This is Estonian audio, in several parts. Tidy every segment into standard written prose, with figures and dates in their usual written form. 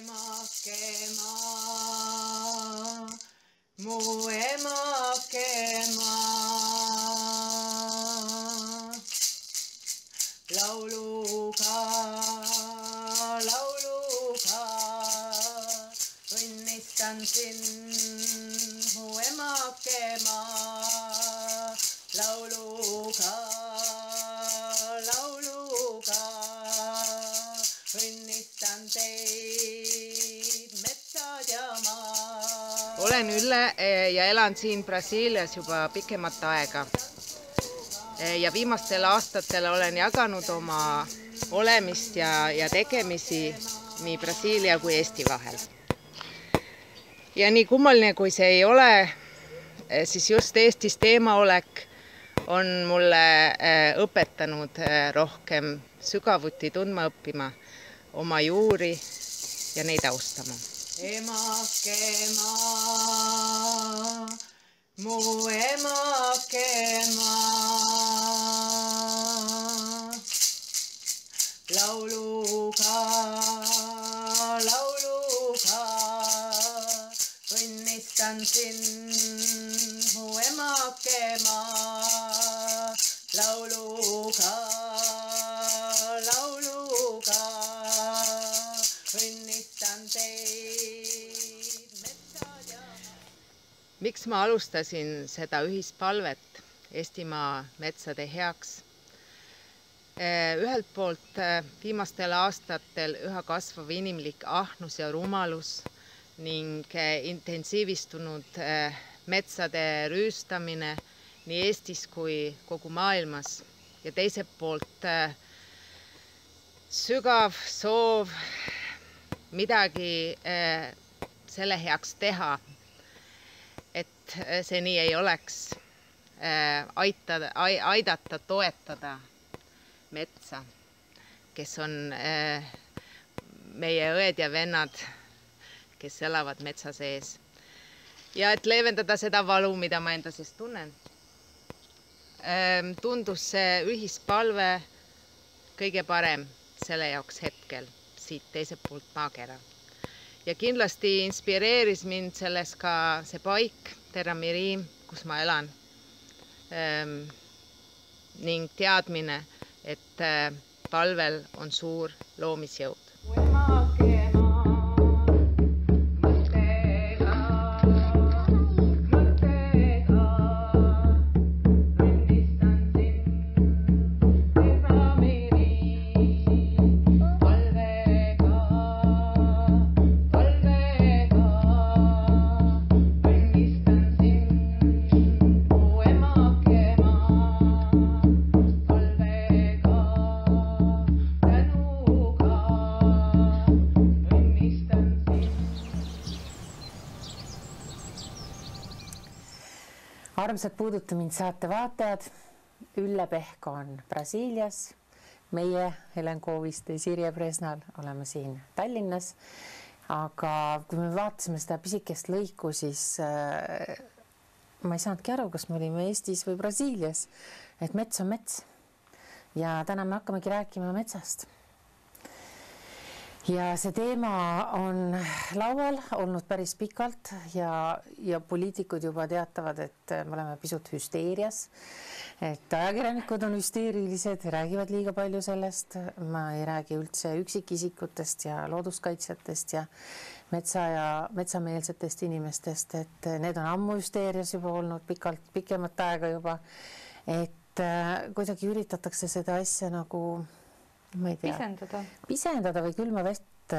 Emake maa, mu emake maa. Lauluka, õnnistan sind, mu emake maa. Lauluka, õnnistan teid, metsad ja maa. Olen Ülle ja elan siin Brasiilias juba pikemat aega. Ja viimastel aastatel olen jaganud oma olemist ja tegemisi nii Brasiilia kui Eesti vahel. Ja nii kummaline kui see ei ole, siis just Eestis teemaolek on mulle õpetanud rohkem sügavuti tundma õppima oma juuri ja neid austama. Emake maa, mu emake maa. Lauluka, õnnistan sind, mu emake maa. Lauluka, õnnistan teid, metsad ja maa. Miks ma alustasin seda ühispalvet Eestimaa metsade heaks? Ühelt poolt viimastel aastatel üha kasvav inimlik ahnus ja rumalus ning intensiivistunud metsade rüüstamine nii Eestis kui kogu maailmas. Ja teiselt poolt sügav soov midagi selle heaks teha, et see nii ei oleks, aidata, toetada metsa, kes on meie õed ja vennad, kes elavad metsa sees. Ja et leevendada seda valu, mida ma enda sees tunnen, tundus see ühispalve kõige parem selle jaoks hetkel siit teiselt poolt maakera. Ja kindlasti inspireeris mind selles ka see paik, Terra Mirim, kus ma elan, ning teadmine, et palvel on suur loomisjõud. Armsad Puuduta mind saate vaatajad, Ülle Pehk on Brasiilias, meie Helen Kooviste ja Sirje Presnal oleme siin Tallinnas, aga kui me vaatasime seda pisikest lõiku, siis ma ei saanudki aru, kas me olime Eestis või Brasiilias, et mets on mets ja täna me hakkamegi rääkima metsast. Ja see teema on laual olnud päris pikalt ja poliitikud juba teatavad, et me oleme pisut hüsteerias, et ajakirjanikud on hüsteerilised, räägivad liiga palju sellest, ma ei räägi üldse üksikisikutest ja looduskaitsjatest ja metsameelsetest inimestest, et need on ammu hüsteerias juba olnud pikemat aega juba, et kuidagi üritatakse seda asja nagu ma ei tea, pisendada või külma vest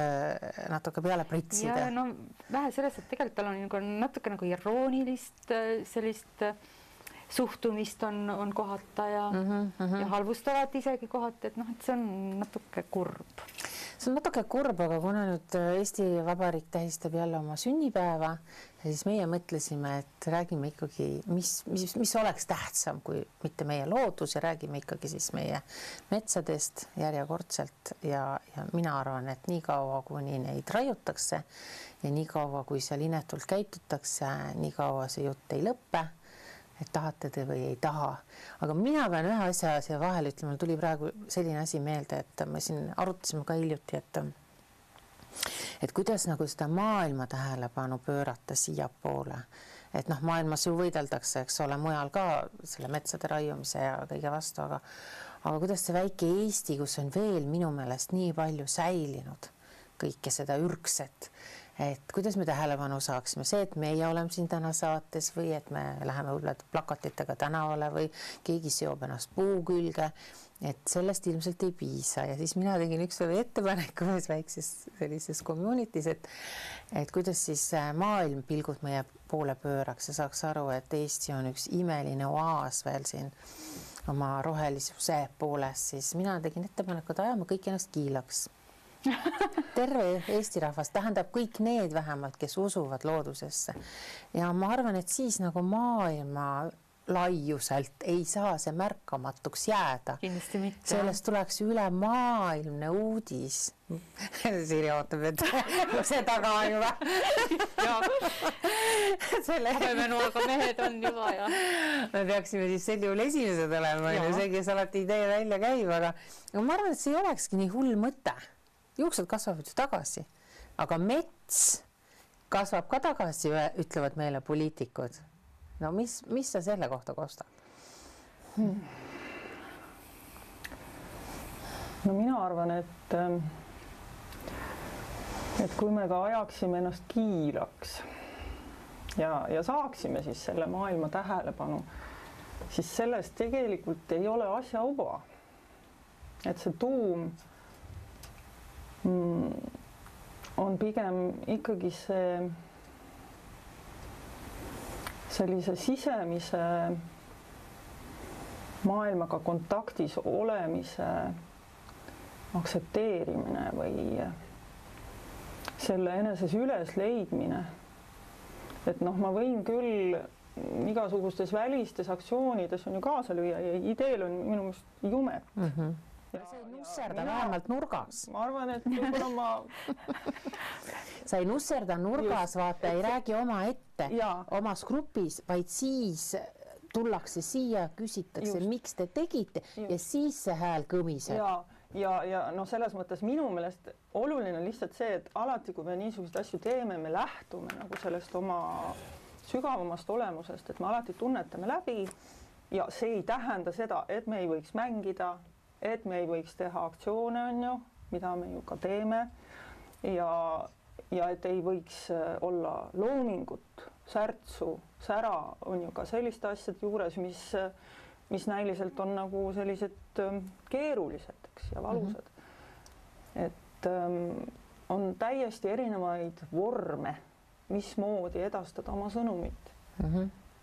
natuke peale pritsida. Ja no vähe sellest, et tegelikult on natuke nagu iroonilist sellist suhtumist on kohata ja halvustavat isegi kohata, et see on natuke kurb. See on natuke kurb, aga kuna nüüd Eesti Vabariik tähistab jälle oma sünnipäeva, siis meie mõtlesime, et räägime ikkagi, mis oleks tähtsam kui mitte meie loodus ja räägime ikkagi siis meie metsadest järjekordselt ja mina arvan, et nii kaua, kuni neid raiutakse ja nii kaua, kui seal inetult käitutakse, nii kaua see jutt ei lõppe, et tahate te või ei taha. Aga mina pean ühe asja siia vahel ütlema, tuli praegu selline asi meelde, et me siin arutasime ka hiljuti, et kuidas nagu seda maailma tähelepanu pöörata siiapoole, et noh, maailmas ju võideldakse, eks ole, mujal ka selle metsade raiumise ja kõige vastu, aga kuidas see väike Eesti, kus on veel minu meelest nii palju säilinud kõike seda ürgset, et kuidas me tähelepanu saaksime, see, et meie oleme siin täna saates või et me läheme võib-olla plakatitega tänavale või keegi seob ennast puu külge, et sellest ilmselt ei piisa ja siis mina tegin ükskord ettepaneku ühes väikses sellises community's, et kuidas siis maailm pilgud meie poole pööraks ja saaks aru, et Eesti on üks imeline oaas veel siin oma rohelisuse pooles, siis mina tegin ettepaneku, et ajame kõik ennast kiilaks. Terve Eesti rahvas, tähendab kõik need vähemalt, kes usuvad loodusesse. Ja ma arvan, et siis nagu maailma laiuselt ei saa see märkamatuks jääda. Kindlasti mitte. Sellest tuleks üle maailmne uudis. Siiri ootab, et see taga on juba. Habemenuaga mehed on juba ja. Me peaksime siis sel juhul esimesed olema, see, kes alati idee välja käib, aga ma arvan, et see ei olekski nii hull mõte. Juuksed kasvavad ju tagasi, aga mets kasvab ka tagasi, ütlevad meile poliitikud. No mis sa selle kohta kostad? No mina arvan, et kui me ka ajaksime ennast kiiraks ja saaksime siis selle maailma tähelepanu, siis sellest tegelikult ei ole asja uba. Et see tuum on pigem ikkagi sellise sisemise maailmaga kontaktis olemise aktsepteerimine või selle eneses üles leidmine. Et noh, ma võin küll igasugustes välistes aktsioonides on ju kaasa lüüa ja ideel on minu meelest jumet. Ja sa ei nusserda vähemalt nurgas. Ma arvan, et sa ei nusserda nurgas, vaata, ei räägi oma ette, omas grupis, vaid siis tullakse siia, küsitakse, miks te tegite ja siis see hääl kõmiseb. Ja no selles mõttes minu meelest oluline lihtsalt see, et alati, kui me niisuguseid asju teeme, me lähtume nagu sellest oma sügavamast olemusest, et me alati tunnetame läbi ja see ei tähenda seda, et me ei võiks mängida, et me ei võiks teha aktsioone, on ju, mida me ju ka teeme ja et ei võiks olla loomingut, särtsu, sära on ju ka selliste asjade juures, mis näiliselt on nagu sellised keerulised, eks, ja valusad. Et on täiesti erinevaid vorme, mismoodi edastada oma sõnumit.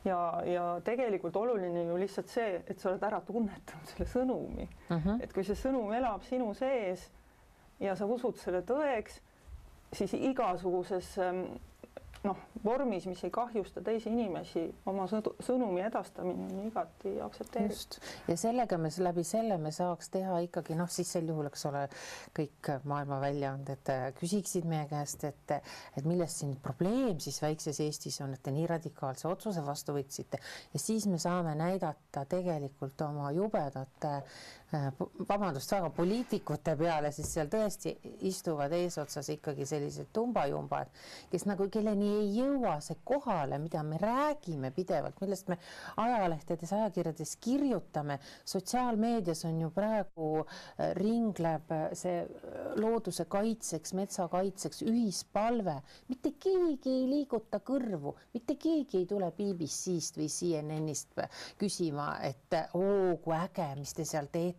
Ja tegelikult oluline ju lihtsalt see, et sa oled ära tunnetanud selle sõnumi. Et kui see sõnum elab sinu sees ja sa usud selle tõeks, siis igasuguses vormis, mis ei kahjusta teisi inimesi, oma sõnumi edastamine on igati aktsepteeritud. Ja sellega läbi selle me saaks teha ikkagi, siis sel juhul, eks ole, kõik maailma väljaanded küsiksid meie käest, et millest siin probleem siis väikses Eestis on, et te nii radikaalse otsuse vastu võtsite ja siis me saame näidata tegelikult oma jubedate väga poliitikute peale, siis seal tõesti istuvad eesotsas ikkagi sellised tumbajumbad, kes nagu kelleni ei jõua see kohale, mida me räägime pidevalt, millest me ajalehtedes, ajakirjades kirjutame. Sotsiaalmeedias on ju praegu ringleb see looduse kaitseks, metsa kaitseks ühispalve. Mitte keegi ei liiguta kõrvu, mitte keegi ei tule BBC-st või CNN-ist küsima, et kui äge, mis te seal teete.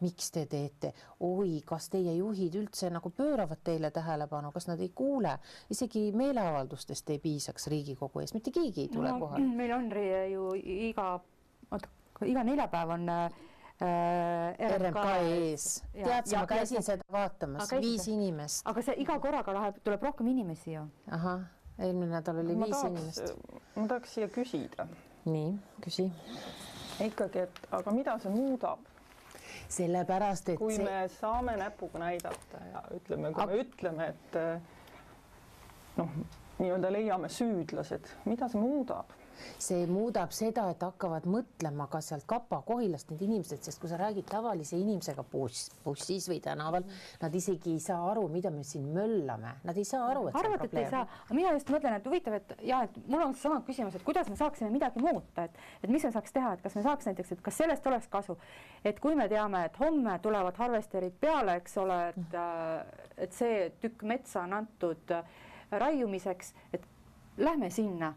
Miks te teete? Oi, kas teie juhid üldse nagu pööravad teile tähelepanu, kas nad ei kuule? Isegi meeleavaldustest ei piisaks Riigikogu ees, mitte keegi ei tule kohale. Meil on ju iga neljapäev on RMK ees. Tead, ma käisin seda vaatamas, 5 inimest. Aga see iga korraga tuleb rohkem inimesi ju. Aha, eelmine nädal oli 5 inimest. Ma tahaks siia küsida. Nii, küsi. Ikkagi, et aga mida see muudab? Sellepärast, et kui me saame näpuga näidata ja ütleme, kui me ütleme, et nii-öelda leiame süüdlased, mida see muudab? see muudab seda, et hakkavad mõtlema ka sealt Kapa-Kohilast need inimesed, sest kui sa räägid tavalise inimesega bussis või tänaval, nad isegi ei saa aru, mida me siin möllame. Nad ei saa aru, et see on probleem. Aga mina just mõtlen, et huvitav, et mul on sama küsimus, et kuidas me saaksime midagi muuta, et mis me saaks teha, et kas me saaks näiteks, et kas sellest oleks kasu, et kui me teame, et homme tulevad harvesterid peale, eks ole, et see tükk metsa on antud raiumiseks, et lähme sinna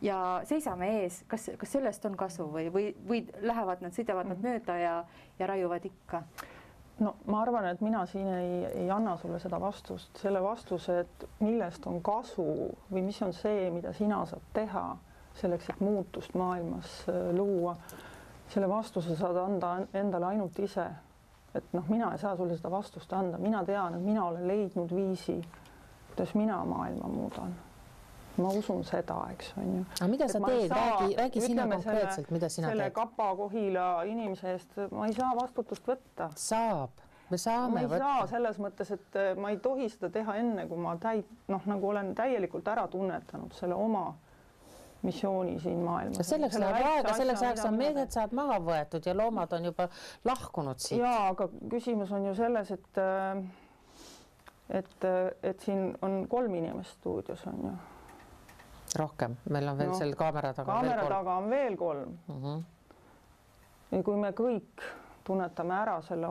ja seisame ees, kas sellest on kasu või lähevad nad, sõidavad nad mööda ja raiuvad ikka? No ma arvan, et mina siin ei anna sulle seda vastust, selle vastuse, et millest on kasu või mis on see, mida sina saad teha selleks, et muutust maailmas luua. Selle vastuse saad anda endale ainult ise. Et mina ei saa sulle seda vastust anda. Mina tean, et mina olen leidnud viisi, kuidas mina maailma muudan. Ma usun seda, eks on ju. Aga mida sa teed? Räägi sina konkreetselt, mida sina teed? Selle Kapa-Kohila inimese eest ma ei saa vastutust võtta. Saab. Me saame võtta. Ma ei saa selles mõttes, et ma ei tohi seda teha enne, kui ma nagu olen täielikult ära tunnetanud selle oma missiooni siin maailmas. Selleks ajaks on mehed saad maha võetud ja loomad on juba lahkunud siit. Jaa, aga küsimus on ju selles, et siin on 3 inimest stuudios on ju. Rohkem, meil on veel seal kaamera taga taga on veel 3. Ja kui me kõik tunnetame ära selle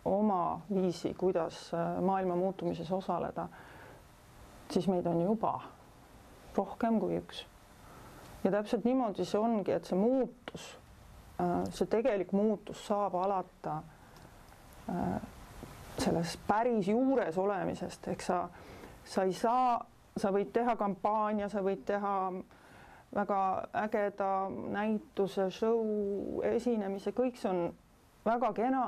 oma viisi, kuidas maailma muutumises osaleda, siis meid on juba rohkem kui 1. Ja täpselt niimoodi see ongi, et see muutus, see tegelik muutus saab alata selles päris juures olemisest, ehk sa ei saa, sa võid teha kampaania, sa võid teha väga ägeda näituse, show, esinemise, kõik see on väga kena,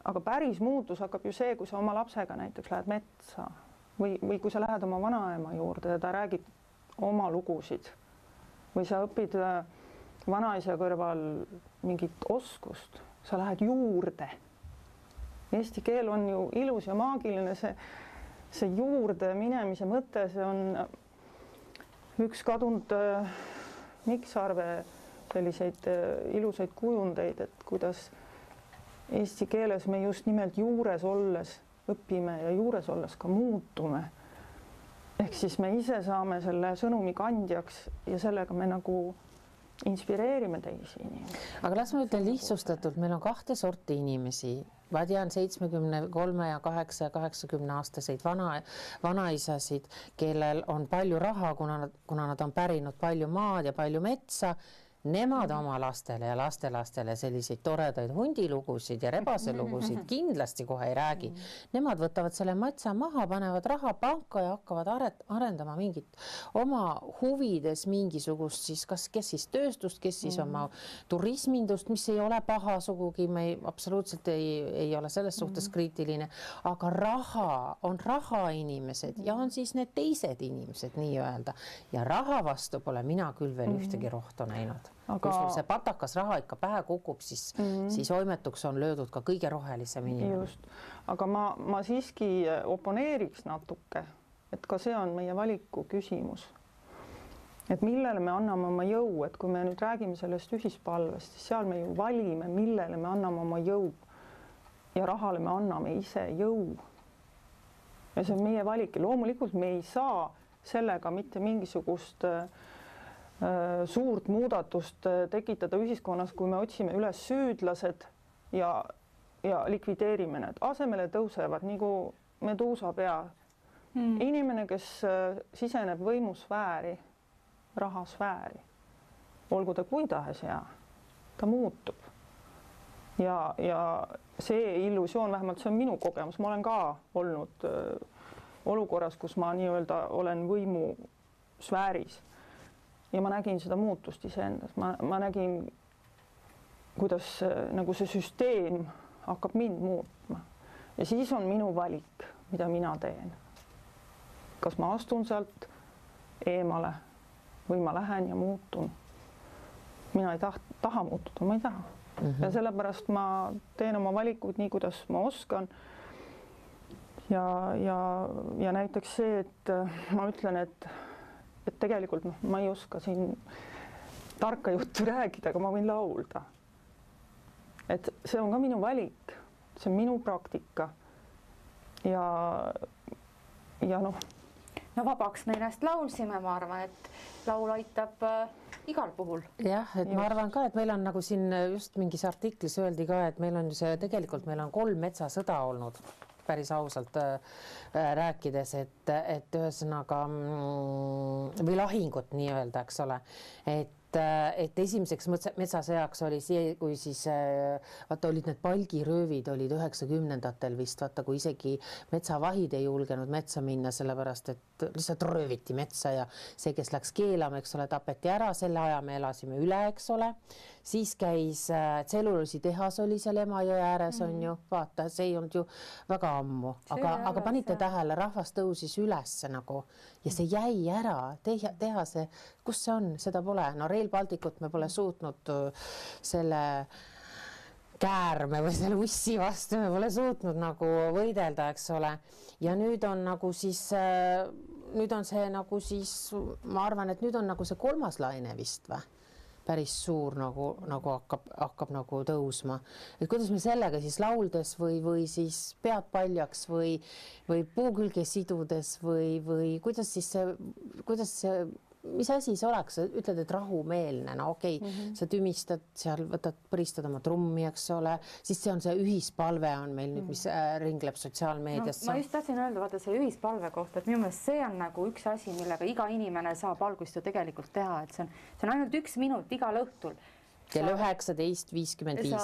aga päris muutus hakkab ju see, kui sa oma lapsega näiteks lähed metsa või kui sa lähed oma vanaema juurde ja ta räägib oma lugusid või sa õpid vanaisa kõrval mingit oskust, sa lähed juurde. Eesti keel on ju ilus ja maagiline, see juurde minemise mõte, see on üks kadunud Mikksarve selliseid ilusaid kujundeid, et kuidas eesti keeles me just nimelt juures olles õpime ja juures olles ka muutume. Ehk siis me ise saame selle sõnumi kandjaks ja sellega me nagu inspireerime teisi inimesi. Aga las ma ütlen lihtsustatult, meil on 2 sorti inimesi. Ma tean 73 ja 8 ja 80 aastaseid vanaisasid, kellel on palju raha, kuna nad on pärinud palju maad ja palju metsa. Nemad oma lastele ja lastelastele selliseid toredaid hundilugusid ja rebaselugusid kindlasti kohe ei räägi. Nemad võtavad selle matsa maha, panevad raha panka ja hakkavad arendama mingit oma huvides mingisugust siis, kes siis tööstust, kes siis oma turismindust, mis ei ole paha sugugi, me absoluutselt ei ole selles suhtes kriitiline, aga raha on raha inimesed ja on siis need teised inimesed nii-öelda ja raha vastu pole mina küll veel ühtegi rohtu näinud. Kui sul see patakas raha ikka pähe kukub, siis oimetuks on löödud ka kõige rohelisem inimene. Just. Aga ma siiski oponeeriks natuke, et ka see on meie valiku küsimus. Et millele me anname oma jõu, et kui me nüüd räägime sellest ühispalvest, siis seal me ju valime, millele me anname oma jõu ja rahale me anname ise jõu. Ja see on meie valik ja loomulikult me ei saa sellega mitte mingisugust suurt muudatust tekitada ühiskonnas, kui me otsime üles süüdlased ja likvideerime need. Asemele tõusevad nagu meduusapea. Inimene, kes siseneb võimusfääri, rahasfääri, olgu ta kui tahes hea, ta muutub. Ja see illusioon, vähemalt see on minu kogemus, ma olen ka olnud olukorras, kus ma nii-öelda olen võimusfääris. Ja ma nägin seda muutust iseendas. Ma nägin, kuidas nagu see süsteem hakkab mind muutma. Ja siis on minu valik, mida mina teen. Kas ma astun sealt eemale või ma lähen ja muutun. Mina ei taha muutuda, ma ei taha. Ja sellepärast ma teen oma valikud nii, kuidas ma oskan. Ja näiteks see, et ma ütlen, et et tegelikult noh, ma ei oska siin tarka juttu rääkida, aga ma võin laulda. Et see on ka minu valik, see on minu praktika ja noh. No vabaks me ennast laulsime, ma arvan, et laul aitab igal puhul. Jah, et ma arvan ka, et meil on nagu siin just mingis artiklis öeldi ka, et meil on ju see, tegelikult meil on 3 metsasõda olnud päris ausalt rääkides, et ühesõnaga või lahingut nii-öelda, eks ole, et esimeseks metsasõjaks oli see, kui siis vaata olid need palgiröövid olid 90-ndatel vist, vaata kui isegi metsavahid ei julgenud metsa minna, sellepärast et lihtsalt rööviti metsa ja see, kes läks keelama, eks ole, tapeti ära, selle aja me elasime üle, eks ole. Siis käis tselluloositehas oli seal Emajõe ääres on ju, vaata, see ei olnud ju väga ammu, aga panite tähele, rahvas tõusis ülesse nagu ja see jäi ära, teha see, kus see on, seda pole, no Rail Balticut me pole suutnud selle käärme või selle ussi vastu, me pole suutnud nagu võidelda, eks ole, ja nüüd on nagu siis, nüüd on see nagu siis, ma arvan, et nüüd on nagu see 3. laine vist või? Päris suur nagu hakkab nagu tõusma. Et kuidas me sellega siis lauldes või siis pead paljaks või puu külge sidudes või kuidas see, mis asi see oleks, ütled, et rahumeelne, no okei, sa tümistad seal, põristad oma trummi, eks ole, siis see on see ühispalve on meil nüüd, mis ringleb sotsiaalmeedias. No, ma just tahtsin öelda, vaata see ühispalve kohta, et minu meelest see on nagu üks asi, millega iga inimene saab algust ju tegelikult teha, et see on ainult 1 minut igal õhtul. Kell 19:55.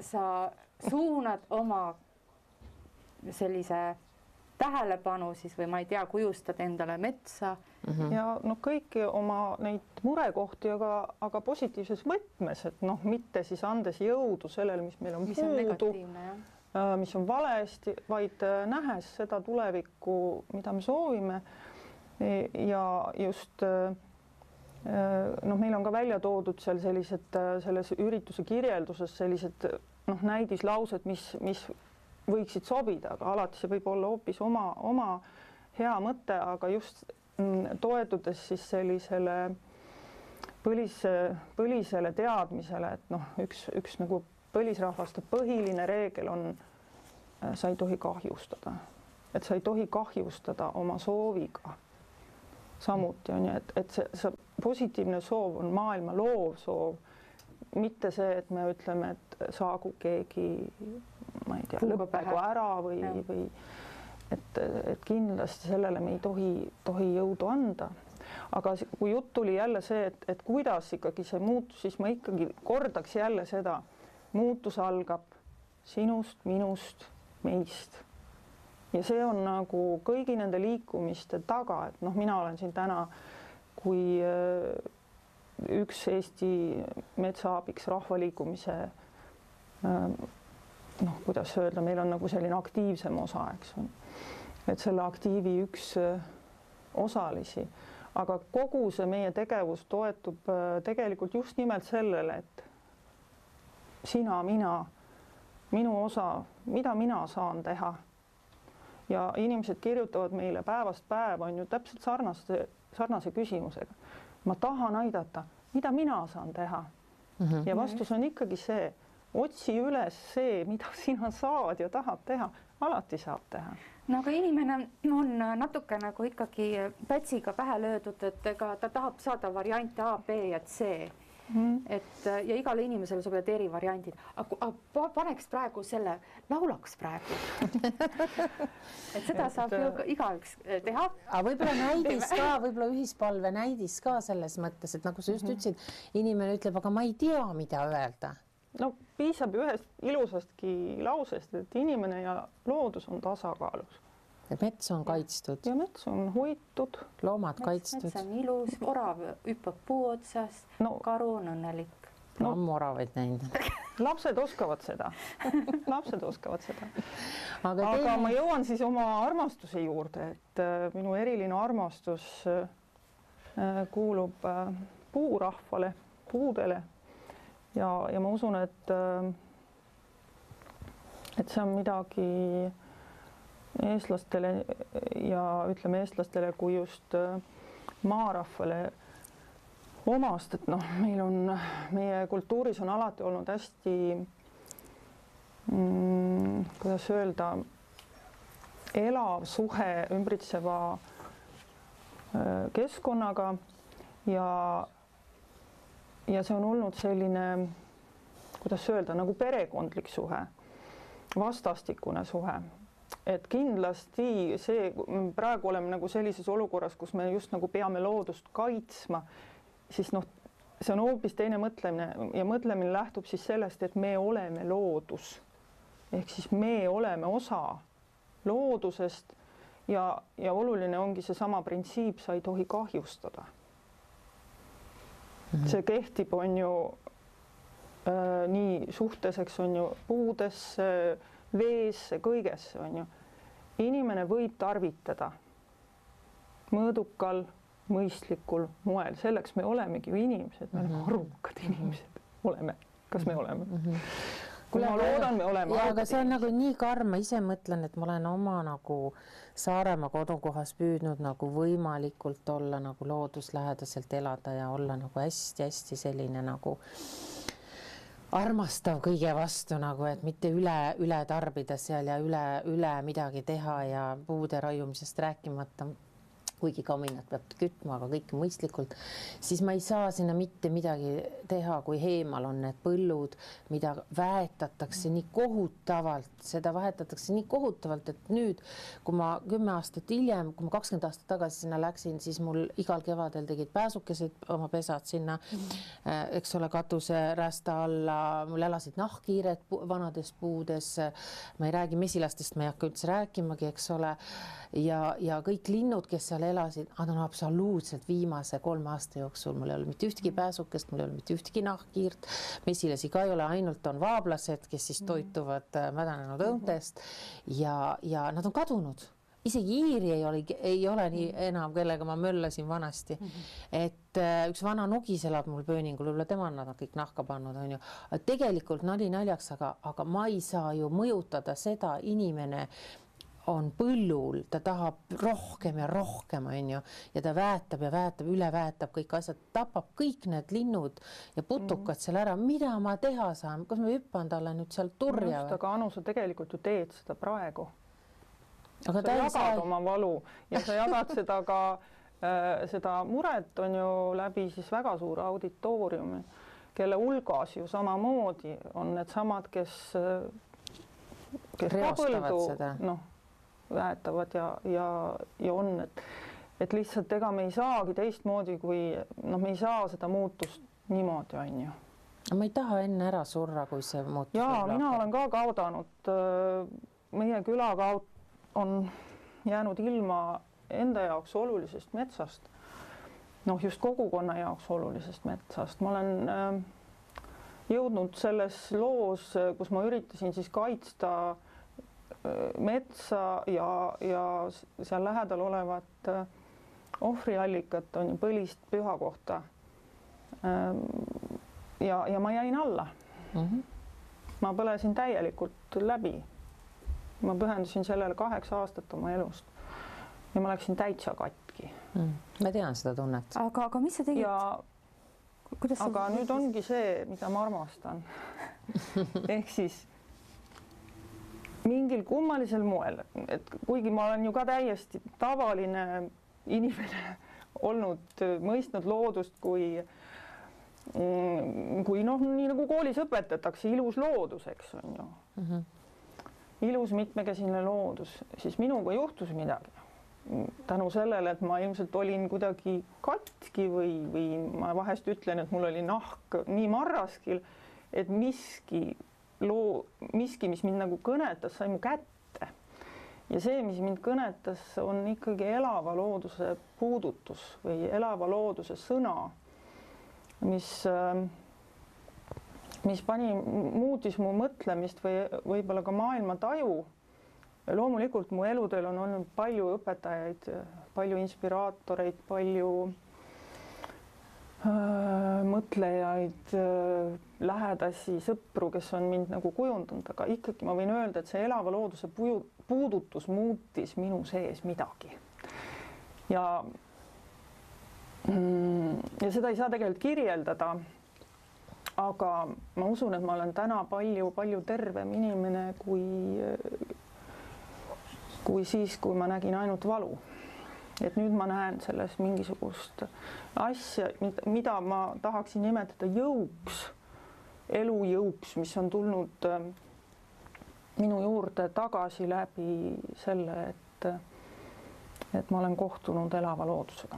Sa suunad oma sellise tähelepanu siis või ma ei tea, kujustad endale metsa. Ja no kõiki oma neid murekohti, aga positiivses võtmes, et noh, mitte siis andes jõudu sellele, mis meil on puudu, mis on valesti, vaid nähes seda tulevikku, mida me soovime ja just noh, meil on ka välja toodud seal sellised selles ürituse kirjelduses sellised noh, näidislaused, mis võiksid sobida, aga alati see võib olla hoopis oma hea mõte, aga just toetudes siis sellisele põlisele teadmisele, et noh, üks nagu põlisrahvaste põhiline reegel on, sa ei tohi kahjustada, et sa ei tohi kahjustada oma sooviga. Samuti on ju, et see positiivne soov on maailma loov soov, mitte see, et me ütleme, et saagu keegi ma ei tea, lõppegu ära või et kindlasti sellele me ei tohi jõudu anda. Aga kui jutt tuli jälle see, et kuidas ikkagi see muutus, siis ma ikkagi kordaks jälle seda, muutus algab sinust, minust, meist. Ja see on nagu kõigi nende liikumiste taga, et noh, mina olen siin täna kui üks Eesti metsaabiks rahvaliikumise noh, kuidas öelda, meil on nagu selline aktiivsem osa, eks on. Et selle aktiivi üks osalisi, aga kogu see meie tegevus toetub tegelikult just nimelt sellele, et sina, mina, minu osa, mida mina saan teha. Ja inimesed kirjutavad meile päevast päev on ju täpselt sarnase küsimusega. Ma tahan aidata, mida mina saan teha. Ja vastus on ikkagi see, otsi üles see, mida sina saad ja tahad teha, alati saab teha. No aga inimene on natuke nagu ikkagi pätsiga pähe löödud, et ega ta tahab saada variante A, B ja C. Et ja igale inimesele sobivad eri variandid. Aga paneks praegu selle, laulaks praegu. Et seda saab ju igaüks teha. Aga võib-olla näidis ka, võib-olla ühispalve näidis ka selles mõttes, et nagu sa just ütlesid, inimene ütleb, aga ma ei tea, mida öelda. No piisab ühest ilusastki lausest, et inimene ja loodus on tasakaalus. Et mets on kaitstud. Ja mets on hoitud. Loomad kaitstud. Mets on ilus, orav hüppab puu otsas, karu on õnnelik. Ammu oravaid näinud. Lapsed oskavad seda. Aga ma jõuan siis oma armastuse juurde, et minu eriline armastus kuulub puurahvale, puudele. Ja ma usun, et see on midagi eestlastele ja ütleme eestlastele kui just maarahvale omast, et noh, meie kultuuris on alati olnud hästi, kuidas öelda, elav suhe ümbritseva keskkonnaga ja see on olnud selline, kuidas öelda, nagu perekondlik suhe, vastastikune suhe. Et kindlasti see, praegu oleme nagu sellises olukorras, kus me just nagu peame loodust kaitsma, siis noh, see on hoopis teine mõtlemine ja mõtlemine lähtub siis sellest, et me oleme loodus. Ehk siis me oleme osa loodusest ja oluline ongi seesama printsiip, sa ei tohi kahjustada. See kehtib, on ju nii suhteseks, on ju puudesse, veesse, kõigesse, on ju. Inimene võib tarvitada mõõdukal, mõistlikul moel. Selleks me olemegi ju inimesed, me oleme arukad inimesed. Oleme. Kas me oleme? Ma loodan, me oleme. Ja, aga see on nagu nii karm, ma ise mõtlen, et ma olen oma nagu Saaremaa kodukohas püüdnud nagu võimalikult olla nagu looduslähedaselt elada ja olla nagu hästi-hästi selline nagu armastav kõige vastu nagu, et mitte üle tarbida seal ja üle midagi teha ja puude raiumisest rääkimata, kuigi kaminat peab kütma, aga kõik mõistlikult, siis ma ei saa sinna mitte midagi teha, kui heemal on need põllud, mida väetatakse nii kohutavalt, seda vahetatakse nii kohutavalt, et nüüd, kui ma 10 aastat hiljem, kui ma 20 aastat tagasi sinna läksin, siis mul igal kevadel tegid pääsukesed oma pesad sinna, eks ole, katuse rästa alla, mul elasid nahkhiired vanades puudes, ma ei räägi mesilastest, ma ei hakka üldse rääkimagi, eks ole, ja kõik linnud, kes seal elasid, nad on absoluutselt viimase 3 aasta jooksul, mul ei ole mitte ühtegi pääsukest, mul ei ole mitte ühtegi nahkhiirt, mesilasi ka ei ole, ainult on vaablased, kes siis toituvad mädanenud õuntest ja nad on kadunud. Isegi iiri ei ole nii enam, kellega ma möllasin vanasti. Et üks vana nugis elab mul pööningul, üle tema nad on kõik nahka pannud, on ju. Tegelikult nali naljaks, aga ma ei saa ju mõjutada seda inimene, on põllul, ta tahab rohkem ja rohkem, on ju, ja ta väetab ja väetab, üle väetab kõik asjad, tapab kõik need linnud ja putukad seal ära. Mida ma teha saan? Kas ma hüppan talle nüüd seal turja? Aga Anu, sa tegelikult ju teed seda praegu. Aga sa jagad oma valu ja sa jagad seda ka, seda muret on ju läbi siis väga suure auditooriumi, kelle hulgas ju samamoodi on need samad, kes reostavad seda. Noh, väetavad ja on, et lihtsalt ega me ei saagi teistmoodi, kui me ei saa seda muutust niimoodi, on ju. Ma ei taha enne ära surra, kui see muutus. Jaa, mina olen ka kaudanud. Meie küla on jäänud ilma enda jaoks olulisest metsast. Noh, just kogukonna jaoks olulisest metsast. Ma olen jõudnud selles loos, kus ma üritasin siis kaitsta metsa ja seal lähedal olevat ohvriallikat, on ju põlist püha kohta. Ja ma jäin alla. Ma põlesin täielikult läbi. Ma pühendusin sellele 8 aastat oma elust ja ma läksin täitsa katki. Ma tean seda tunnet. Aga mis sa tegid? Aga nüüd ongi see, mida ma armastan. Ehk siis mingil kummalisel moel, et kuigi ma olen ju ka täiesti tavaline inimene olnud, mõistnud loodust kui noh, nii nagu koolis õpetatakse, ilus loodus, eks on ju. Ilus mitmekesine loodus, siis minuga juhtus midagi. Tänu sellele, et ma ilmselt olin kuidagi katki või ma vahest ütlen, et mul oli nahk nii marraskil, et miski, mis mind nagu kõnetas, sai mu kätte. Ja see, mis mind kõnetas, on ikkagi elava looduse puudutus või elava looduse sõna, mis muutis mu mõtlemist või võib-olla ka maailma taju. Loomulikult mu eludel on olnud palju õpetajaid, palju inspiraatoreid, palju mõtlejaid, lähedasi, sõpru, kes on mind nagu kujundanud, aga ikkagi ma võin öelda, et see elava looduse puudutus muutis minu sees midagi. Ja ja seda ei saa tegelikult kirjeldada. Aga ma usun, et ma olen täna palju tervem inimene kui siis, kui ma nägin ainult valu. Et nüüd ma näen selles mingisugust asja, mida ma tahaksin nimetada jõuks, elujõuks, mis on tulnud minu juurde tagasi läbi selle, et ma olen kohtunud elava loodusega.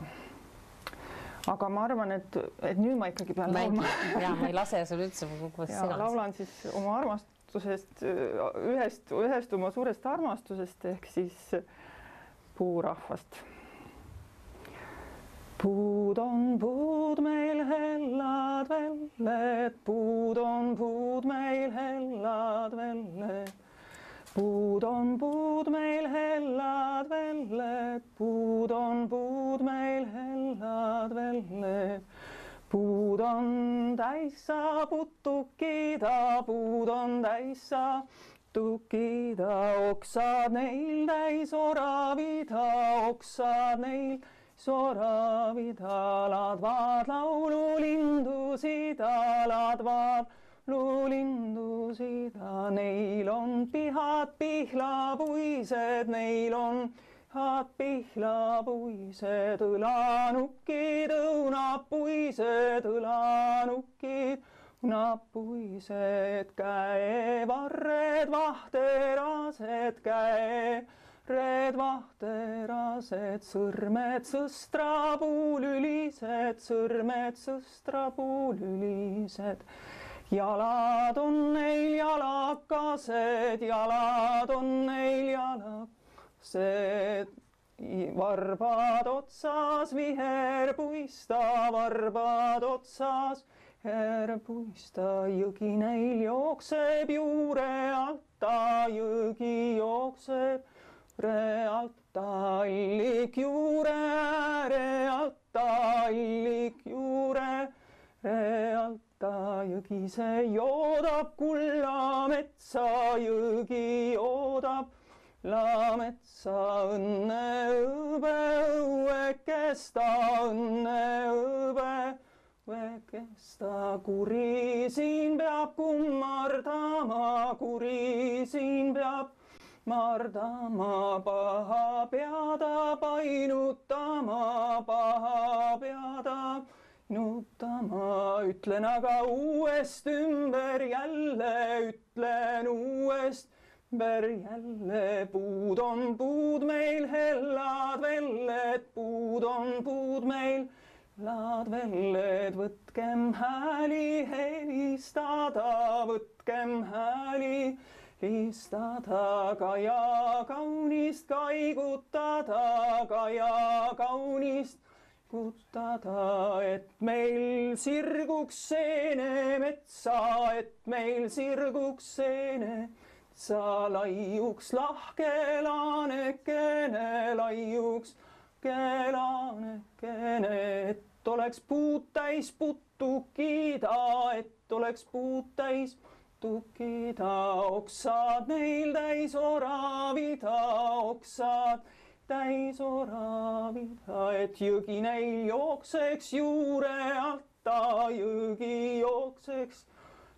Aga ma arvan, et nüüd ma ikkagi pean laulma. Ja, ma ei lase sul üldse kogu ja laulan siis oma armastusest, ühest oma suurest armastusest ehk siis puurahvast. Puud on puud meil hellad velled, puud on puud meil hellad velled. Puud on puud meil hellad velled, puud on puud meil hellad velled. Puud on täissa putukida, puud on täissa putukida, oksad neil täis oravida, oksad neil soravida, ladvad laululindusid, ladvad luulindusid, neil on pihad pihlapuised, neil on pihad pihlapuised, õlanukid, õunapuised, õlanukid, õunapuised, käevarred, vahterased, käevarred, vahterased, sõrmed sõstrapuulülised, sõrmed sõstrapuulülised. Jalad on neil jalakased, jalad on neil jalakased, varbad otsas viherpuista, varbad otsas viherpuista, jõgi neil jookseb juure alta, jõgi jookseb juure alta, allik juure ääre alta, allik juure ääre alta. Jõgi see joodab kulla metsa, jõgi joodab kulla metsa, õnne õbe õuekesta, õnne õbe õuekesta, kuri siin peab kummardama, kuri siin peab mardama, paha peada painutama, paha peada nutama, ütlen aga uuest ümber jälle, ütlen uuest ümber jälle, puud on puud meil hellad velled, puud on puud meil hellad velled, võtkem hääli helistada, võtkem hääli helistada, Kaja kaunist kaigutada, Kaja kaunist kutada, et meil sirguks seene metsa, et meil sirguks seene metsa, laiuks lahke laanekene, laiuks laanekene, et oleks puud täis putukida, et oleks puud täis putukida, oksad neil täis oravida, oksad täis oravida, et jõgi neil jookseks juure alta, jõgi jookseks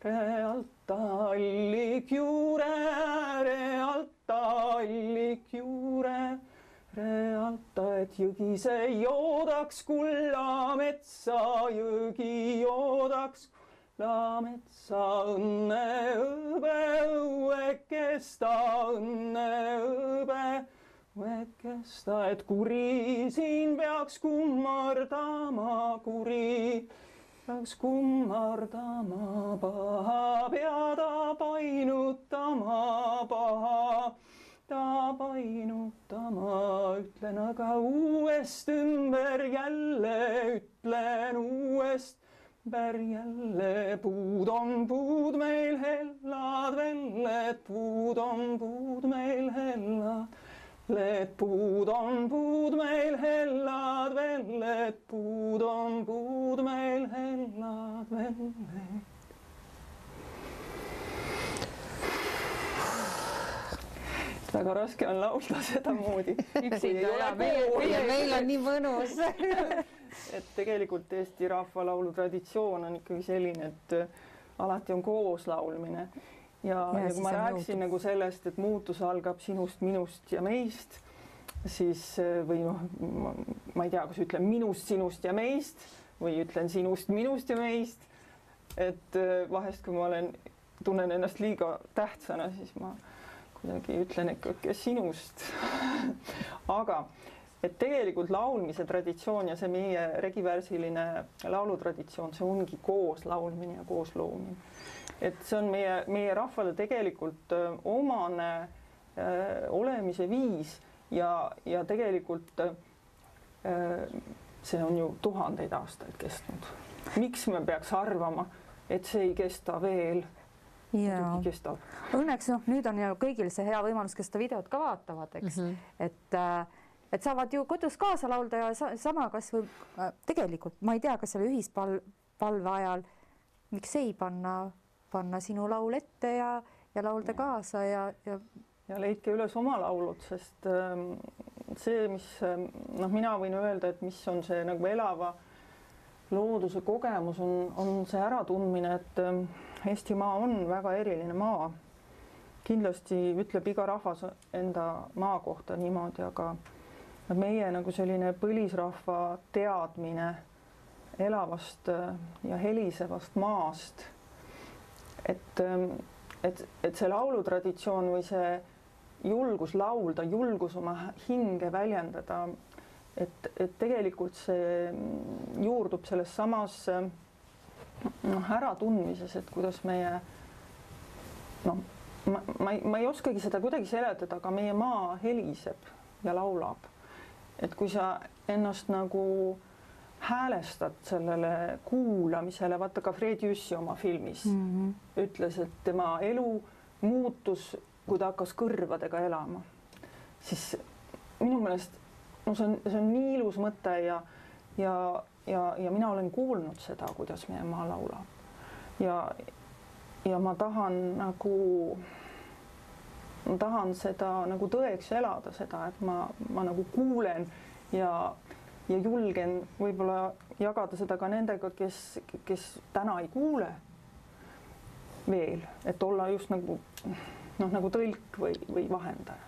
juure alta, allik juure ääre alta, allik juure ääre alta, et jõgi see joodaks kulla metsa, jõgi joodaks kulla metsa, õnne õbe õuekesta, õnne õbe õuekesta, et kuri siin peaks kummardama, kuri peaks kummardama, paha peada painutama, paha ta painutama, ütlen aga uuest ümber jälle, ütlen uuest ümber jälle, puud on puud meil hellad velled, puud on puud meil hellad. Puud on puud meil hellad velled, puud on puud meil hellad velled. Väga raske on laulda sedamoodi. Üksinda ja meil on nii mõnus. et tegelikult Eesti rahvalaulu traditsioon on ikkagi selline, et alati on koos laulmine ja kui ma rääkisin nagu sellest, et muutus algab sinust, minust ja meist, siis või noh, ma ei tea, kas ütlen minust, sinust ja meist või ütlen sinust, minust ja meist, et vahest, kui ma tunnen ennast liiga tähtsana, siis ma kuidagi ütlen ikka sinust. Aga et tegelikult laulmise traditsioon ja see meie regivärsiline laulutraditsioon, see ongi koos laulmine ja koos loomine. Et see on meie rahvale tegelikult omane olemise viis ja tegelikult see on ju tuhandeid aastaid kestnud. Miks me peaks arvama, et see ei kesta veel? Õnneks nüüd on ju kõigil see hea võimalus, kes seda videot ka vaatavad, eks, et saavad ju kodus kaasa laulda ja sama kas või tegelikult, ma ei tea, kas selle ühispalve ajal, miks ei panna sinu laul ette ja laulda kaasa ja leidke üles oma laulud, sest see, mis mina võin öelda, et mis on see nagu elava looduse kogemus, on see äratundmine, et Eestimaa on väga eriline maa. Kindlasti ütleb iga rahvas enda maa kohta niimoodi, aga meie nagu selline põlisrahva teadmine elavast ja helisevast maast, et see laulutraditsioon või see julgus laulda, julgus oma hinge väljendada, et tegelikult see juurdub selles samas äratundmises, et kuidas meie ma ei oskagi seda kuidagi seletada, aga meie maa heliseb ja laulab. Et kui sa ennast nagu häälestad sellele kuulamisele, vaata ka Fred Jüssi oma filmis ütles, et tema elu muutus, kui ta hakkas kõrvadega elama. Siis minu meelest see on nii ilus mõte ja mina olen kuulnud seda, kuidas meie maa laulab. Ja ma tahan seda nagu tõeks elada, seda, et ma nagu kuulen ja julgen võib-olla jagada seda ka nendega, kes täna ei kuule veel, et olla just nagu tõlk või vahendaja.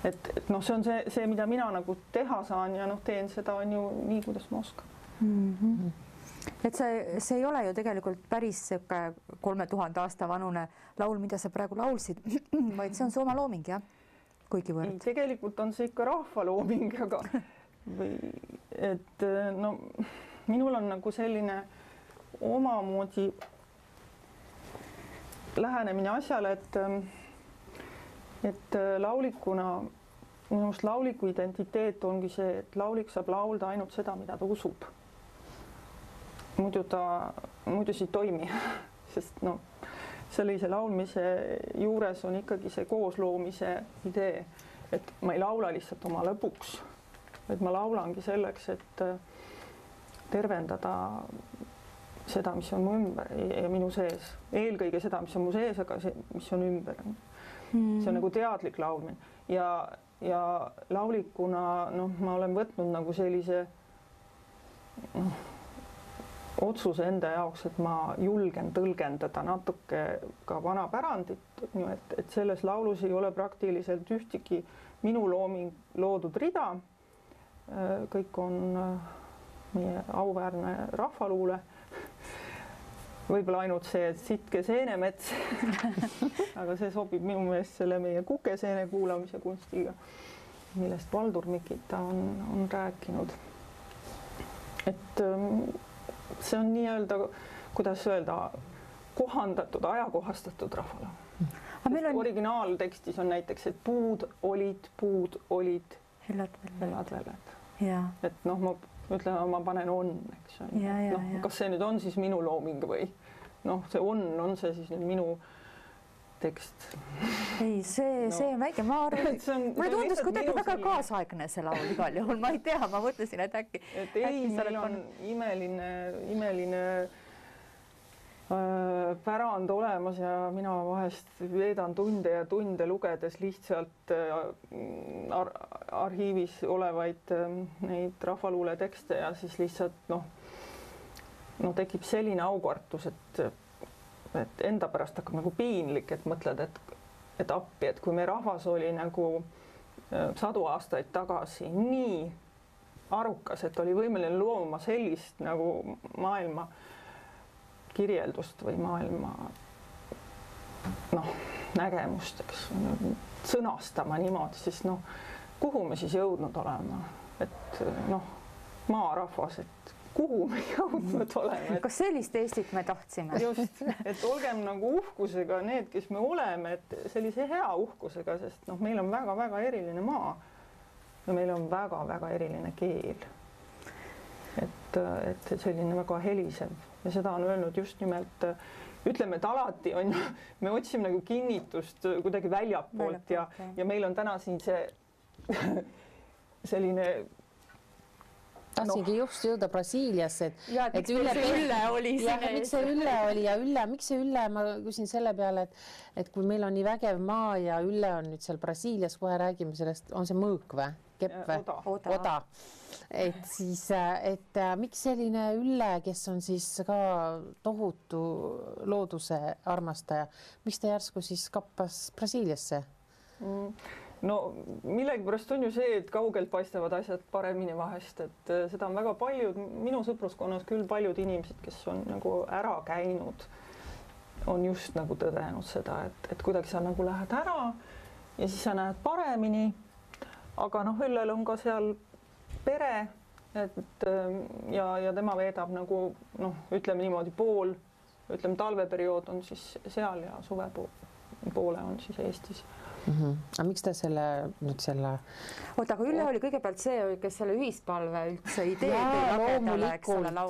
Et see on see, mida mina nagu teha saan ja teen seda on ju nii, kuidas ma oskan. Et see ei ole ju tegelikult päris 3000 aasta vanune laul, mida sa praegu laulsid, vaid see on su oma looming, jah? Kuigivõrd. Tegelikult on see ikka rahvalooming, aga minul on nagu selline omamoodi lähenemine asjale, et laulikuna, minu arust lauliku identiteet ongi see, et laulik saab laulda ainult seda, mida ta usub. Muidu see ei toimi, sest sellise laulmise juures on ikkagi see koosloomise idee, et ma ei laula lihtsalt oma lõpuks, et ma laulangi selleks, et tervendada seda, mis on mu ümber ja minu sees. Eelkõige seda, mis on mu sees, aga see, mis on ümber. See on nagu teadlik laulmine ja laulikuna ma olen võtnud nagu sellise otsuse enda jaoks, et ma julgen tõlgendada natuke ka vana pärandit, et selles laulus ei ole praktiliselt ühtegi minu loodud rida. Kõik on meie auväärne rahvaluule. Võib-olla ainult see, et sitke seenemets, aga see sobib minu meelest selle meie kukeseene kuulamise kunstiga, millest Valdur Mikita on rääkinud. Et see on nii-öelda, kuidas öelda, kohandatud, ajakohastatud rahvale. Originaaltekstis on näiteks, et puud olid, hellad väled. Et ma ütlen, ma panen on, eks on. Kas see nüüd on siis minu looming või see on see siis nüüd minu tekst? Ei, see on väike, ma arvan, mulle tundus kuidagi väga kaasaegne see laul igal juhul, ma ei tea, ma mõtlesin, et äkki. Et ei, meil on imeline pärand olemas ja mina vahest veedan tunde ja tunde lugedes lihtsalt arhiivis olevaid neid rahvaluule tekste ja siis lihtsalt no tekib selline aukartus, et enda pärast hakkab nagu piinlik, et mõtled, et appi, et kui meie rahvas oli nagu 100 aastaid tagasi nii arukas, et oli võimeline looma sellist nagu maailma kirjeldust või maailma nägemust, eks sõnastama niimoodi, siis kuhu me siis jõudnud oleme, et maarahvas, et kuhu me jõudnud oleme. Kas sellist Eestit me tahtsime? Just, et olgem nagu uhkusega need, kes me oleme, et sellise hea uhkusega, sest meil on väga-väga eriline maa ja meil on väga-väga eriline keel. Et selline väga helisev ja seda on öelnud just nimelt, ütleme, et alati on, me otsime nagu kinnitust kuidagi väljapoolt ja meil on täna siin see selline tahtsingi just jõuda Brasiiliasse, et Ülle oli siin. Miks see Ülle oli ja miks see Ülle, ma küsin selle peale, et kui meil on nii vägev maa ja Ülle on nüüd seal Brasiilias, kohe räägime sellest, on see mõõk või? Kepp või? Oda. Et siis, miks selline Ülle, kes on siis ka tohutu looduse armastaja, miks ta järsku siis kappas Brasiiliasse? No millegipärast on ju see, et kaugelt paistavad asjad paremini vahest, et seda on väga paljud, minu sõpruskonnas küll paljud inimesed, kes on nagu ära käinud, on just nagu tõdenud seda, et kuidagi sa nagu lähed ära ja siis sa näed paremini, aga Üllel on ka seal pere, ja tema veedab nagu ütleme niimoodi talveperiood on siis seal ja suvepoole on siis Eestis. Aga miks ta Oota, aga Ülle oli kõigepealt see, kes selle ühispalve üldse idee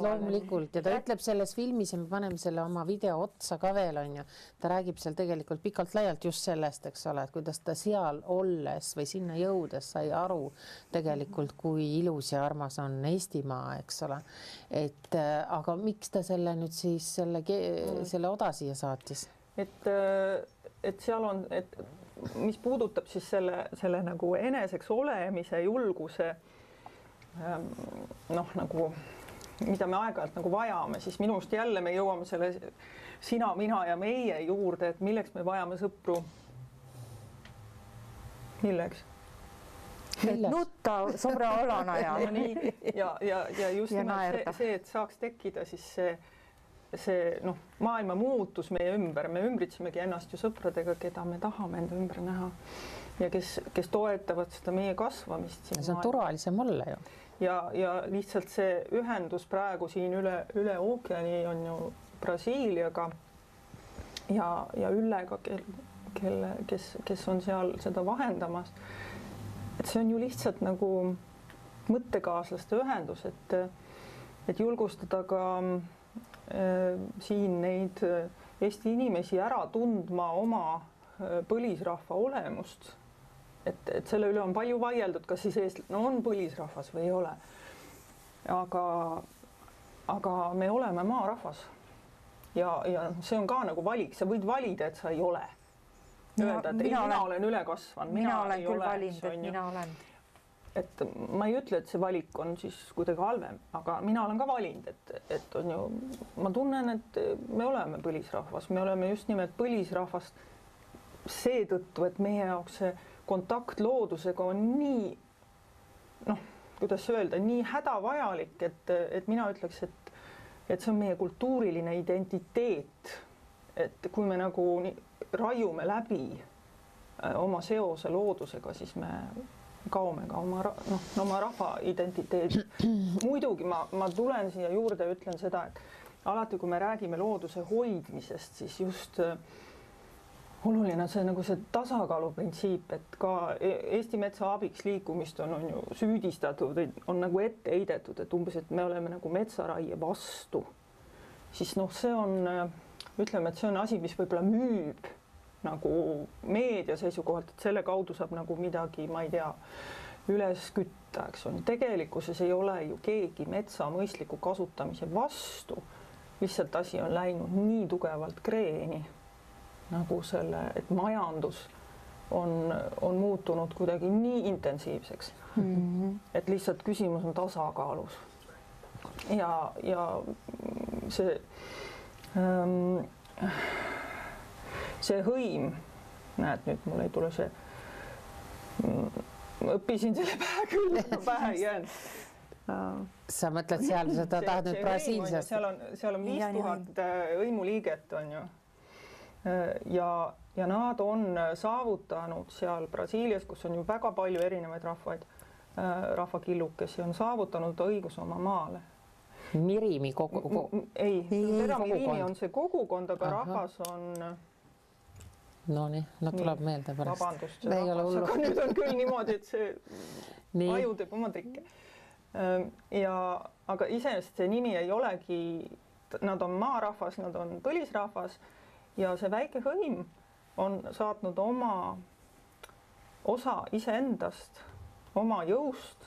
loomulikult ja ta ütleb selles filmis ja me paneme selle oma video otsa ka veel, on ju. Ta räägib seal tegelikult pikalt laialt just sellest, eks ole, et kuidas ta seal olles või sinna jõudes sai aru tegelikult, kui ilus ja armas on Eestimaa, eks ole. Aga miks ta selle nüüd siis selle Oda siia saatis? Et seal on, mis puudutab siis selle nagu eneseks olemise julguse nagu, mida me aeg-ajalt nagu vajame, siis minust jälle me jõuame selle sina, mina ja meie juurde, et milleks me vajame sõpru. Milleks? Nutta sõbra olana ja just nimelt see, et saaks tekkida siis see maailma muutus meie ümber, me ümbritsemegi ennast ju sõpradega, keda me tahame enda ümber näha ja kes toetavad seda meie kasvamist. See on turvalisem olla ju. Ja lihtsalt see ühendus praegu siin üle ookeani on ju Brasiiliaga ja Üllega, kes on seal seda vahendamas. Et see on ju lihtsalt nagu mõttekaaslaste ühendus, et julgustada ka siin neid Eesti inimesi ära tundma oma põlisrahva olemust. Et selle üle on palju vaieldud, kas siis eestlane on põlisrahvas või ei ole. Aga me oleme maarahvas ja see on ka nagu valik, sa võid valida, et sa ei ole. Öelda, et mina olen üle kasvanud, mina olen küll valinud, et mina olen. Et ma ei ütle, et see valik on siis kuidagi halvem, aga mina olen ka valinud, et on ju, ma tunnen, et me oleme põlisrahvas, me oleme just nimelt põlisrahvast seetõttu, et meie jaoks see kontakt loodusega on nii, kuidas öelda, nii hädavajalik, et mina ütleks, et see on meie kultuuriline identiteet, et kui me nagu raiume läbi oma seose loodusega, siis me kaome ka oma rahva identiteedi. Muidugi ma tulen siia juurde ja ütlen seda, et alati, kui me räägime looduse hoidmisest, siis just oluline on see nagu see tasakaaluprintsiip, et ka Eesti metsa abiks liikumist on ju süüdistatud, on nagu ette heidetud, et umbes, et me oleme nagu metsaraie vastu. Siis see on, ütleme, et see on asi, mis võib-olla müüb nagu meedia seisukohalt, et selle kaudu saab nagu midagi, ma ei tea, üles kütta, eks on. Tegelikkuses ei ole ju keegi metsa mõistliku kasutamise vastu. lihtsalt asi on läinud nii tugevalt kreeni nagu selle, et majandus on muutunud kuidagi nii intensiivseks, et lihtsalt küsimus on tasakaalus. Ja see hõim, näed, nüüd mul ei tule see, õppisin selle pähe ei jäänud. Sa mõtled seal, sa tahad nüüd Brasiiliast? Seal on 5000 hõimuliiget, on ju. Ja nad on saavutanud seal Brasiilias, kus on ju väga palju erinevaid rahvakillukesi, on saavutanud õigus oma maale. Mirimi Ei, Mirimi on see kogukond, aga rahvas on... No nii, tuleb meelde pärast. Vabandust, aga nüüd on küll niimoodi, et see aju teeb oma trikke. Aga iseenesest see nimi ei olegi, nad on maarahvas, nad on põlisrahvas ja see väike hõim on saatnud oma osa iseendast, oma jõust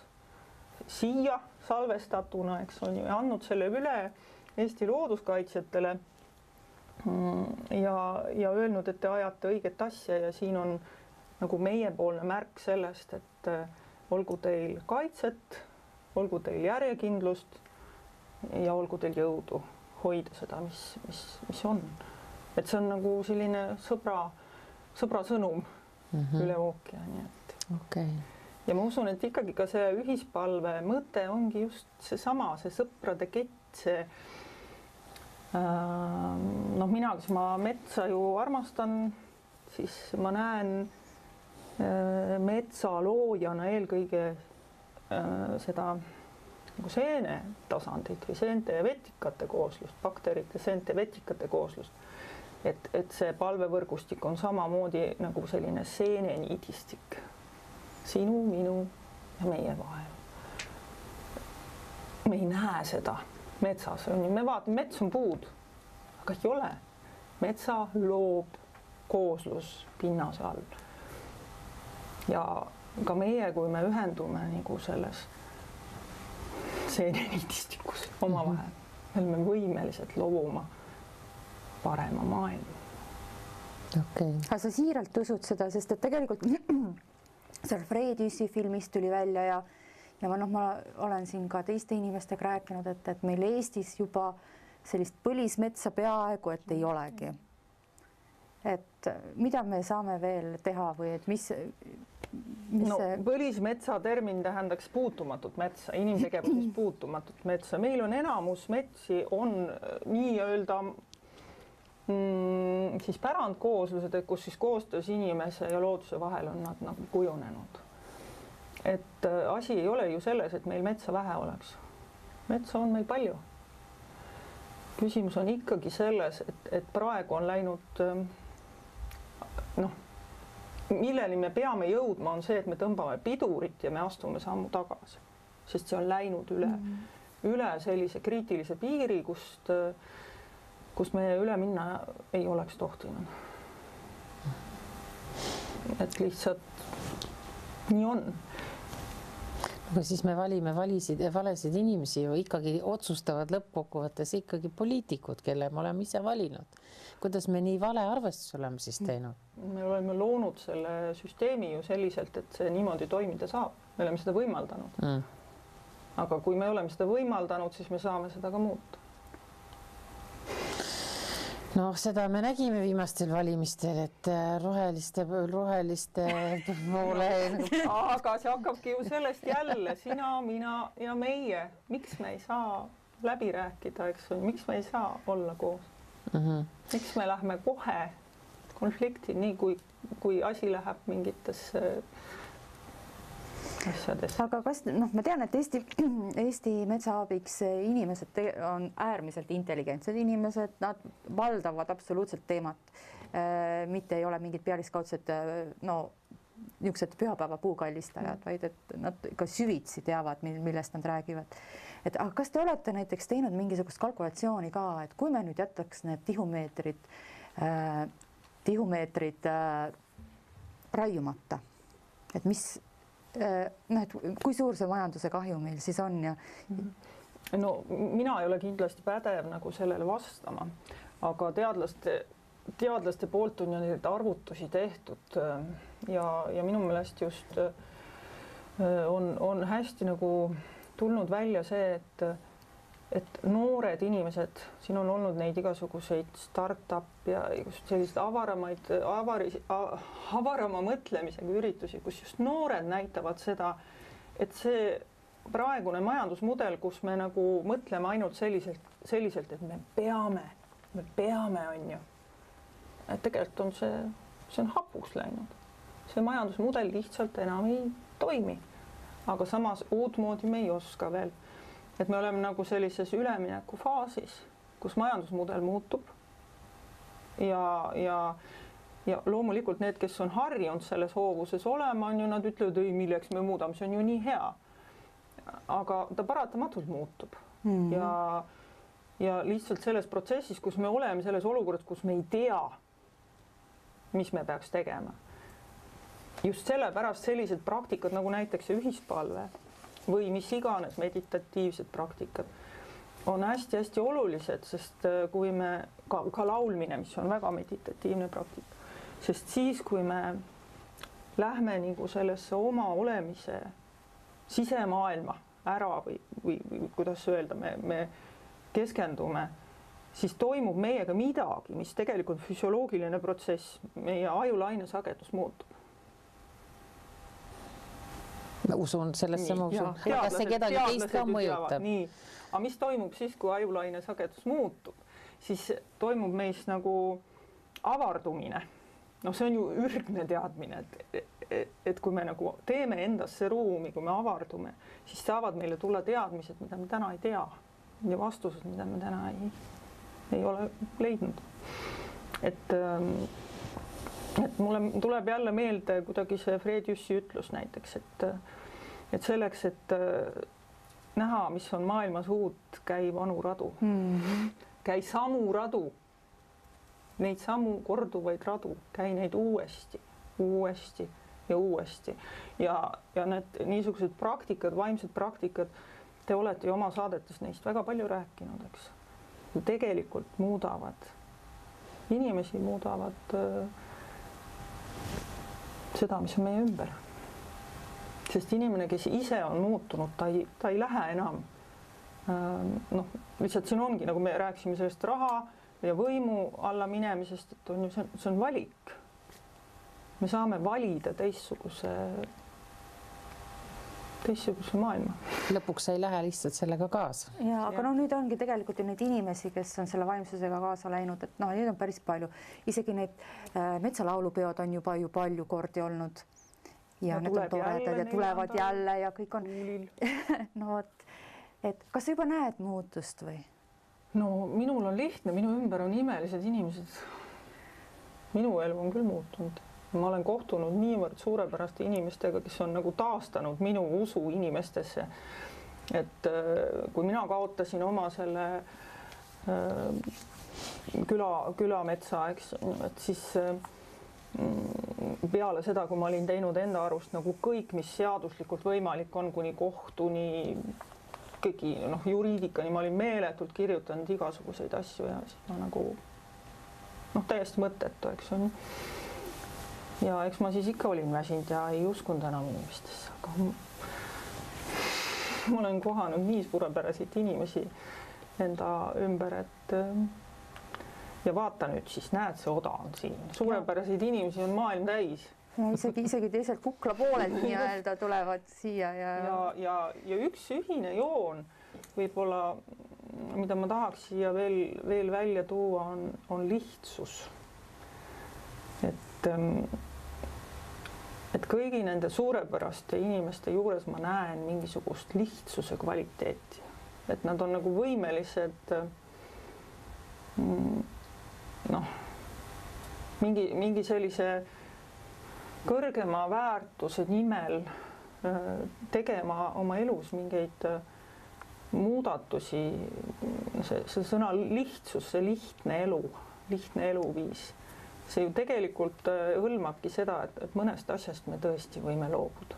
siia salvestatuna, eks on ju, ja andnud selle üle Eesti looduskaitsjatele ja öelnud, et te ajate õiget asja ja siin on nagu meiepoolne märk sellest, et olgu teil kaitset, olgu teil järjekindlust ja olgu teil jõudu hoida seda, mis on. Et see on nagu selline sõbra sõnum üle ookeani. Okay. Ja ma usun, et ikkagi ka see ühispalve mõte ongi just seesama, see sõprade kett, see mina, kes ma metsa ju armastan, siis ma näen metsaloojana eelkõige seda nagu seene tasandit või seente ja vetikate kooslust, bakterite, seente, vetikate kooslust. Et see palvevõrgustik on samamoodi nagu selline seeneniidistik sinu, minu ja meie vahel. Me ei näe seda metsas, me vaatame, mets on puud, aga ei ole. Metsa loob kooslus pinnase all. Ja ka meie, kui me ühendume nagu selles seeneniidistikus omavahel, me oleme võimelised looma parema maailma. Okay. Aga sa siiralt usud seda, sest et tegelikult seal Frediusi filmist tuli välja ja ma olen siin ka teiste inimestega rääkinud, et meil Eestis juba sellist põlismetsa peaaegu, et ei olegi. Et mida me saame veel teha või et mis see... Põlismetsa termin tähendaks puutumatut metsa, inimtegevuses puutumatut metsa. Meil on enamus metsi on nii-öelda siis pärandkooslused, kus siis koostöös inimese ja looduse vahel on nad nagu kujunenud. Et asi ei ole ju selles, et meil metsa vähe oleks. Metsa on meil palju. Küsimus on ikkagi selles, et praegu on läinud, milleni me peame jõudma, on see, et me tõmbame pidurit ja me astume sammu tagasi. Sest see on läinud üle sellise kriitilise piiri, kust me üle minna ei oleks tohtinud. Et lihtsalt nii on. Aga siis me valime valesid inimesi ju ikkagi otsustavad lõppkokkuvõttes ikkagi poliitikud, kelle me oleme ise valinud. Kuidas me nii vale arvestus oleme siis teinud? Me oleme loonud selle süsteemi ju selliselt, et see niimoodi toimida saab. Me oleme seda võimaldanud. Aga kui me oleme seda võimaldanud, siis me saame seda ka muuta. Seda me nägime viimastel valimistel, et roheliste poole... Aga see hakkabki ju sellest jälle, sina, mina ja meie. Miks me ei saa läbi rääkida, eks või? Miks me ei saa olla koos? Miks me lähme kohe konflikti, nii kui asi läheb mingitesse asjades? Aga kas, ma tean, et Eesti metsaabiks inimesed on äärmiselt intelligentsed inimesed, nad valdavad absoluutselt teemat, mitte ei ole mingid pealiskaudsed, niisugused pühapäeva puukallistajad, vaid et nad ka süvitsi teavad, millest nad räägivad. Aga kas te olete näiteks teinud mingisugust kalkulatsiooni ka, et kui me nüüd jätaks need tihumeetrid raiumata, et mis et kui suur see majanduse kahju meil siis on ja no mina ei ole kindlasti pädev nagu sellele vastama, aga teadlaste poolt on ju neid arvutusi tehtud ja minu meelest just on hästi nagu tulnud välja see, et noored inimesed, siin on olnud neid igasuguseid startup ja selliseid avarama mõtlemisega üritusi, kus just noored näitavad seda, et see praegune majandusmudel, kus me nagu mõtleme ainult selliselt, et me peame, on ju. Et tegelikult on see on hapuks läinud. See majandusmudel lihtsalt enam ei toimi. Aga samas uutmoodi me ei oska veel. Et me oleme nagu sellises ülemineku faasis, kus majandusmudel muutub ja loomulikult need, kes on harjunud selles hoovuses olema, on ju, nad ütlevad, ei, milleks me muudame, see on ju nii hea. Aga ta paratamatult muutub ja lihtsalt selles protsessis, kus me oleme selles olukorras, kus me ei tea, mis me peaks tegema. Just sellepärast sellised praktikad nagu näiteks ühispalve või mis iganes meditatiivsed praktikad on hästi-hästi olulised, sest kui me ka laulmine, mis on väga meditatiivne praktika, sest siis, kui me lähme nagu sellesse oma olemise sisemaailma ära või kuidas öelda, me keskendume, siis toimub meiega midagi, mis tegelikult füsioloogiline protsess, meie ajulaine sagedus muutub. Ma usun, sellesse ma usun. Kas see kedagi teist ka mõjutab? Nii. Aga mis toimub siis, kui ajulaine sagedus muutub? Siis toimub meis nagu avardumine. No see on ju ürgne teadmine, et kui me nagu teeme endasse ruumi, kui me avardume, siis saavad meile tulla teadmised, mida me täna ei tea ja vastused, mida me täna ei ole leidnud. Et mulle tuleb jälle meelde kuidagi see Fred Jüssi ütlus näiteks, et selleks, et näha, mis on maailmas uut, käi vanu radu. Käi samu radu, neid samu korduvaid radu, käi neid uuesti ja uuesti. Ja need niisugused praktikad, vaimsed praktikad, te olete ju oma saadetes neist väga palju rääkinud, eks. Tegelikult muudavad, inimesi muudavad seda, mis on meie ümber. Sest inimene, kes ise on muutunud, ta ei lähe enam. Lihtsalt siin ongi, nagu me rääksime sellest raha ja võimu alla minemisest, et on ju, see on valik. Me saame valida teistsuguse maailma. Lõpuks ei lähe lihtsalt sellega kaasa. Ja, aga no nüüd ongi tegelikult ju neid inimesi, kes on selle vaimsusega kaasa läinud, et neid on päris palju. Isegi need metsalaulupeod on juba ju palju kordi olnud ja need on toredad ja tulevad jälle ja kõik on. No, et kas sa juba näed muutust või? No minul on lihtne, minu ümber on imelised inimesed. Minu elu on küll muutunud. Ma olen kohtunud niivõrd suurepäraste inimestega, kes on nagu taastanud minu usu inimestesse. Et kui mina kaotasin oma selle külametsa, eks, et siis peale seda, kui ma olin teinud enda arust nagu kõik, mis seaduslikult võimalik on, kuni kohtuni, kõigi juriidikani, ma olin meeletult kirjutanud igasuguseid asju ja siis ma nagu täiesti mõttetu, eks on. Ja eks ma siis ikka olin väsinud ja ei uskunud enam inimestesse, aga ma olen kohanud nii suurepäraseid inimesi enda ümber, et ja vaata nüüd siis, näed, see oda on siin. Suurepäraseid inimesi on maailm täis. Ja isegi teiselt kukla poolelt nii-öelda tulevad siia. Ja üks ühine joon võib-olla, mida ma tahaks siia veel välja tuua, on lihtsus. Et kõigi nende suurepäraste inimeste juures ma näen mingisugust lihtsuse kvaliteeti. Et nad on nagu võimelised mingi sellise kõrgema väärtuse nimel tegema oma elus mingeid muudatusi. See sõna lihtsus, see lihtne eluviis. See ju tegelikult hõlmabki seda, et mõnest asjast me tõesti võime loobuda.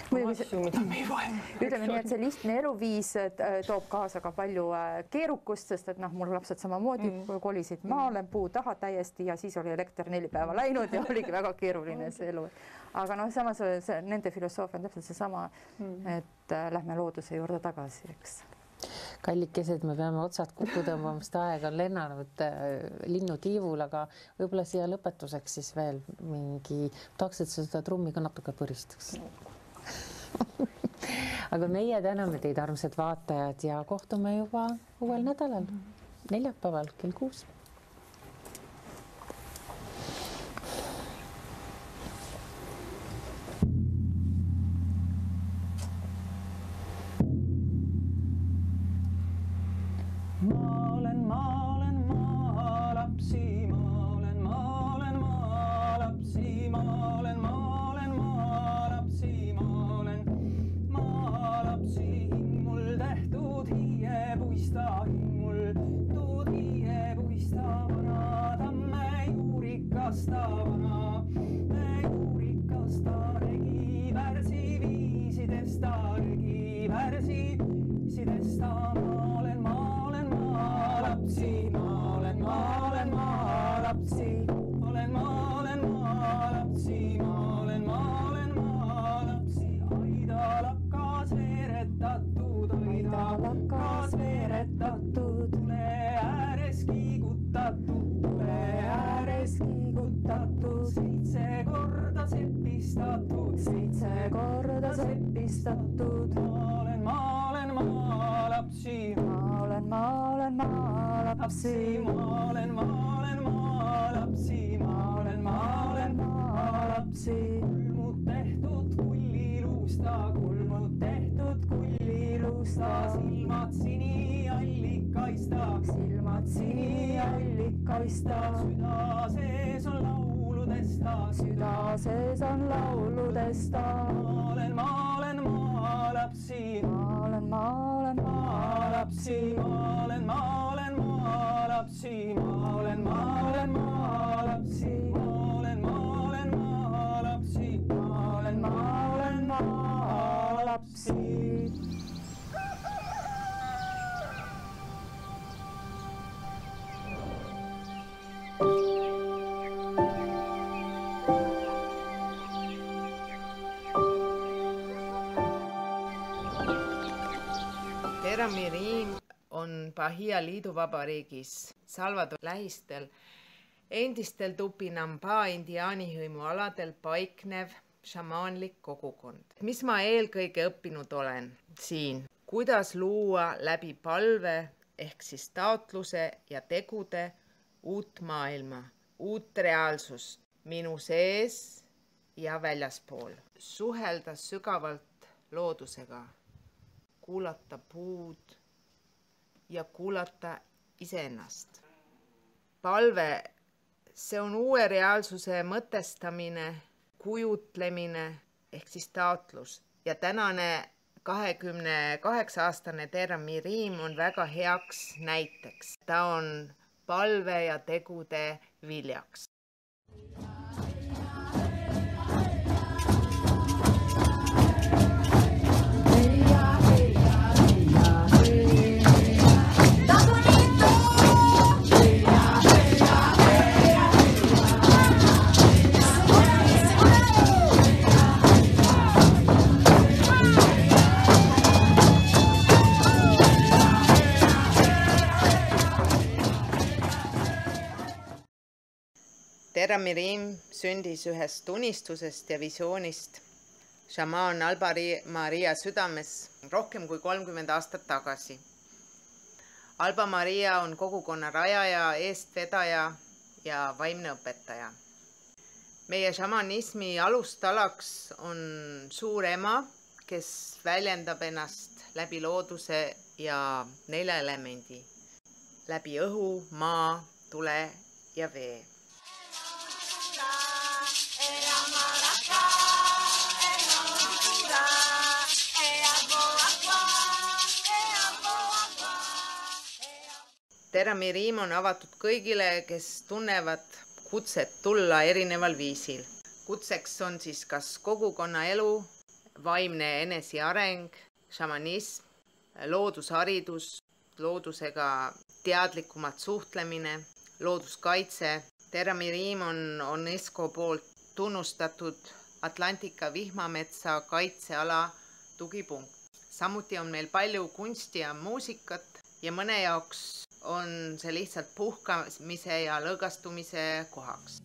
asju, mida me ei vaja. Ütleme nii, et see lihtne eluviis toob kaasa ka palju keerukust, sest et mul lapsed samamoodi kolisid maale puu taha täiesti ja siis oli elekter 4 päeva läinud ja oligi väga keeruline see elu. Aga samas nende filosoofia on täpselt seesama, et lähme looduse juurde tagasi, eks. Kallikesed, me peame otsad kokku tõmbama, sest aeg on lennanud linnutiivul, aga võib-olla siia lõpetuseks siis veel mingi, tahaks, et seda trummi ka natuke põristaks. Aga meie täname teid, armsad vaatajad, ja kohtume juba uuel nädalal, neljapäeval kell 6. Süda sees on lauludesta. Ma olen maalapsi. Ma olen maalapsi. Ma olen maalapsi. Ma olen maalapsi. Ma olen maalapsi. Ma olen maalapsi. Terramiriim on Bahia liiduvabariigis Salvador lähistel endistel Tupinambá indiaanihõimu aladel paiknev šamaanlik kogukond. Mis ma eelkõige õppinud olen siin? Kuidas luua läbi palve ehk siis taotluse ja tegude uut maailma, uut reaalsust minu sees ja väljaspool. Suhelda sügavalt loodusega. Kuulata puud ja kuulata iseennast. Palve, see on uue reaalsuse mõtestamine, kujutlemine ehk siis taotlus. Ja tänane 28-aastane Terramiriim on väga heaks näiteks. Ta on palve ja tegude viljaks. Terramiriim sündis ühest unistusest ja visioonist šamaan Alba Maria südames rohkem kui 30 aastat tagasi. Alba Maria on kogukonna rajaja, eestvedaja ja vaimne õpetaja. Meie šamanismi alustalaks on suur ema, kes väljendab ennast läbi looduse ja 4 elemendi. Läbi õhu, maa, tule ja vee. Terramiriim on avatud kõigile, kes tunnevad kutset tulla erineval viisil. Kutseks on siis kas kogukonna elu vaimne eneseareng, šamanism, loodusharidus, loodusega teadlikumalt suhtlemine, looduskaitse. Teramiriim on UNESCO poolt tunnustatud Atlantika vihmametsa kaitseala tugipunkt. Samuti on meil palju kunsti ja muusikat ja mõne jaoks on see lihtsalt puhkamise ja lõõgastumise kohaks.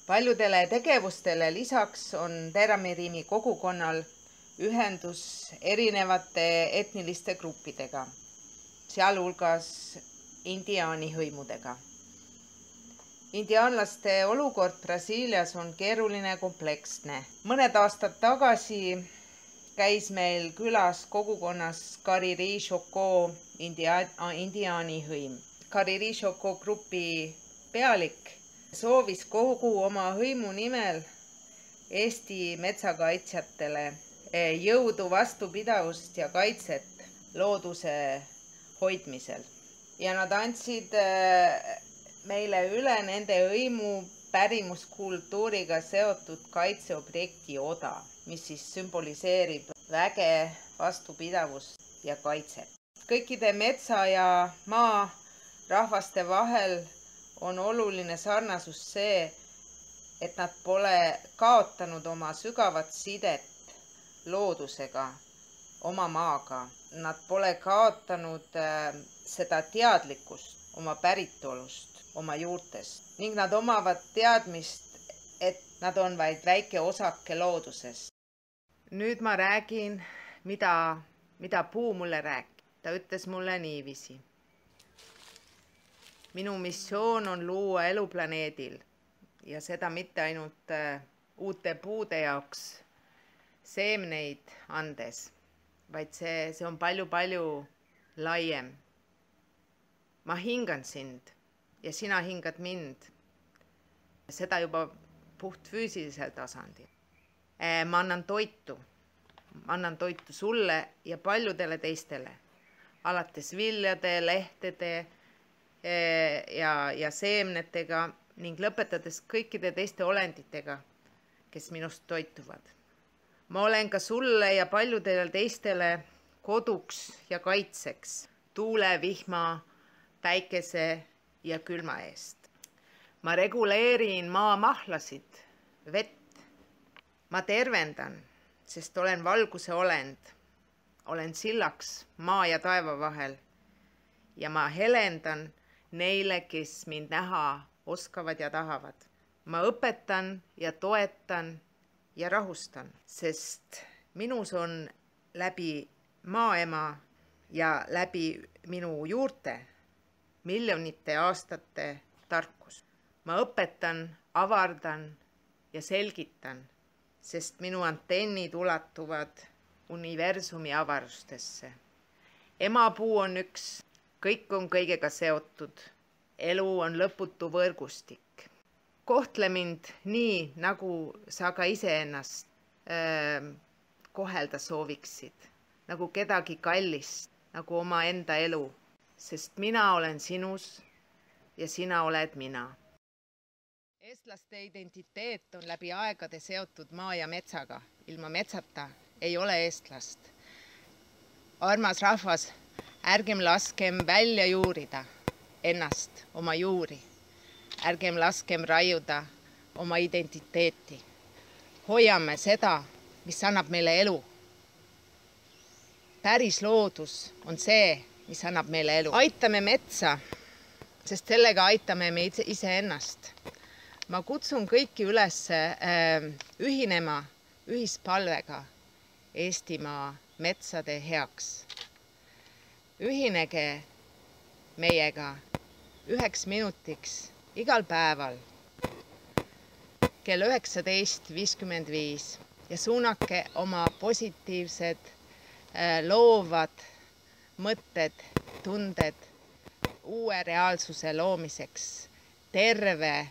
Paljudele tegevustele lisaks on Teramiriimi kogukonnal ühendus erinevate etniliste gruppidega, sealhulgas indiaani hõimudega. Indiaanlaste olukord Brasiilias on keeruline ja kompleksne. Mõned aastad tagasi käis meil külas kogukonnas Cariri-Chocó indiaani hõim. Cariri-Chocó grupi pealik soovis kogu oma hõimu nimel Eesti metsakaitsjatele jõudu, vastupidavust ja kaitset looduse hoidmisel. Ja nad andsid meile üle nende hõimu pärimuskultuuriga seotud kaitseobjekti oda, mis siis sümboliseerib väge, vastupidavust ja kaitset. Kõikide metsa ja maa rahvaste vahel on oluline sarnasus see, et nad pole kaotanud oma sügavat sidet loodusega, oma maaga. Nad pole kaotanud seda teadlikkust oma päritolust, oma juurtest ning nad omavad teadmist, et nad on vaid väike osake loodusest. Nüüd ma räägin, mida puu mulle rääkis. Ta ütles mulle niiviisi. Minu missioon on luua elu planeedil ja seda mitte ainult uute puude jaoks seemneid andes, vaid see on palju laiem. Ma hingan sind ja sina hingad mind. Seda juba puht füüsilisel tasandil. Ma annan toitu sulle ja paljudele teistele, alates viljade, lehtede ja seemnetega ning lõpetades kõikide teiste olenditega, kes minust toituvad. Ma olen ka sulle ja paljudele teistele koduks ja kaitseks tuule, vihma, päikese ja külma eest. Ma reguleerin maa mahlasid, vett. Ma tervendan, sest olen valguse olend. Olen sillaks maa ja taeva vahel ja ma helendan neile, kes mind näha oskavad ja tahavad. Ma õpetan ja toetan ja rahustan, sest minus on läbi maaema ja läbi minu juurte miljonite aastate tarkus. Ma õpetan, avardan ja selgitan, sest minu antennid ulatuvad universumi avarustesse. Emapuu on üks. Kõik on kõigega seotud. Elu on lõputu võrgustik. Kohtle mind nii, nagu sa ka iseennast kohelda sooviksid. Nagu kedagi kallist, nagu oma enda elu. Sest mina olen sinus ja sina oled mina. eestlaste identiteet on läbi aegade seotud maa ja metsaga. Ilma metsata ei ole eestlast. Armas rahvas, ärgem laskem välja juurida ennast, oma juuri. Ärgem laskem raiuda oma identiteeti. Hoiame seda, mis annab meile elu. Päris loodus on see, mis annab meile elu. Aitame metsa, sest sellega aitame me iseennast. Ma kutsun kõiki üles ühinema ühispalvega Eestimaa metsade heaks. Ühinege meiega 1 minutiks igal päeval kell 19.55 ja suunake oma positiivsed, loovad mõtted, tunded uue reaalsuse loomiseks, terve,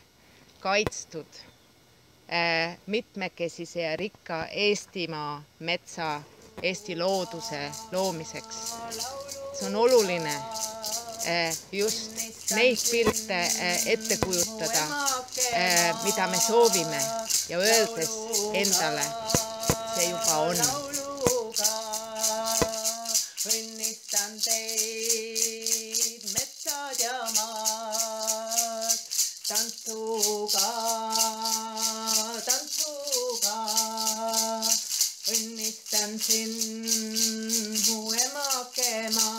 kaitstud, mitmekesise ja rikka Eestimaa metsa, Eesti looduse loomiseks. See on oluline just neid pilte ette kujutada, mida me soovime ja öeldes endale, see juba on. Õnnistan teid, metsad ja maad, tantsuga. Õnnistan sind, mu emake maa.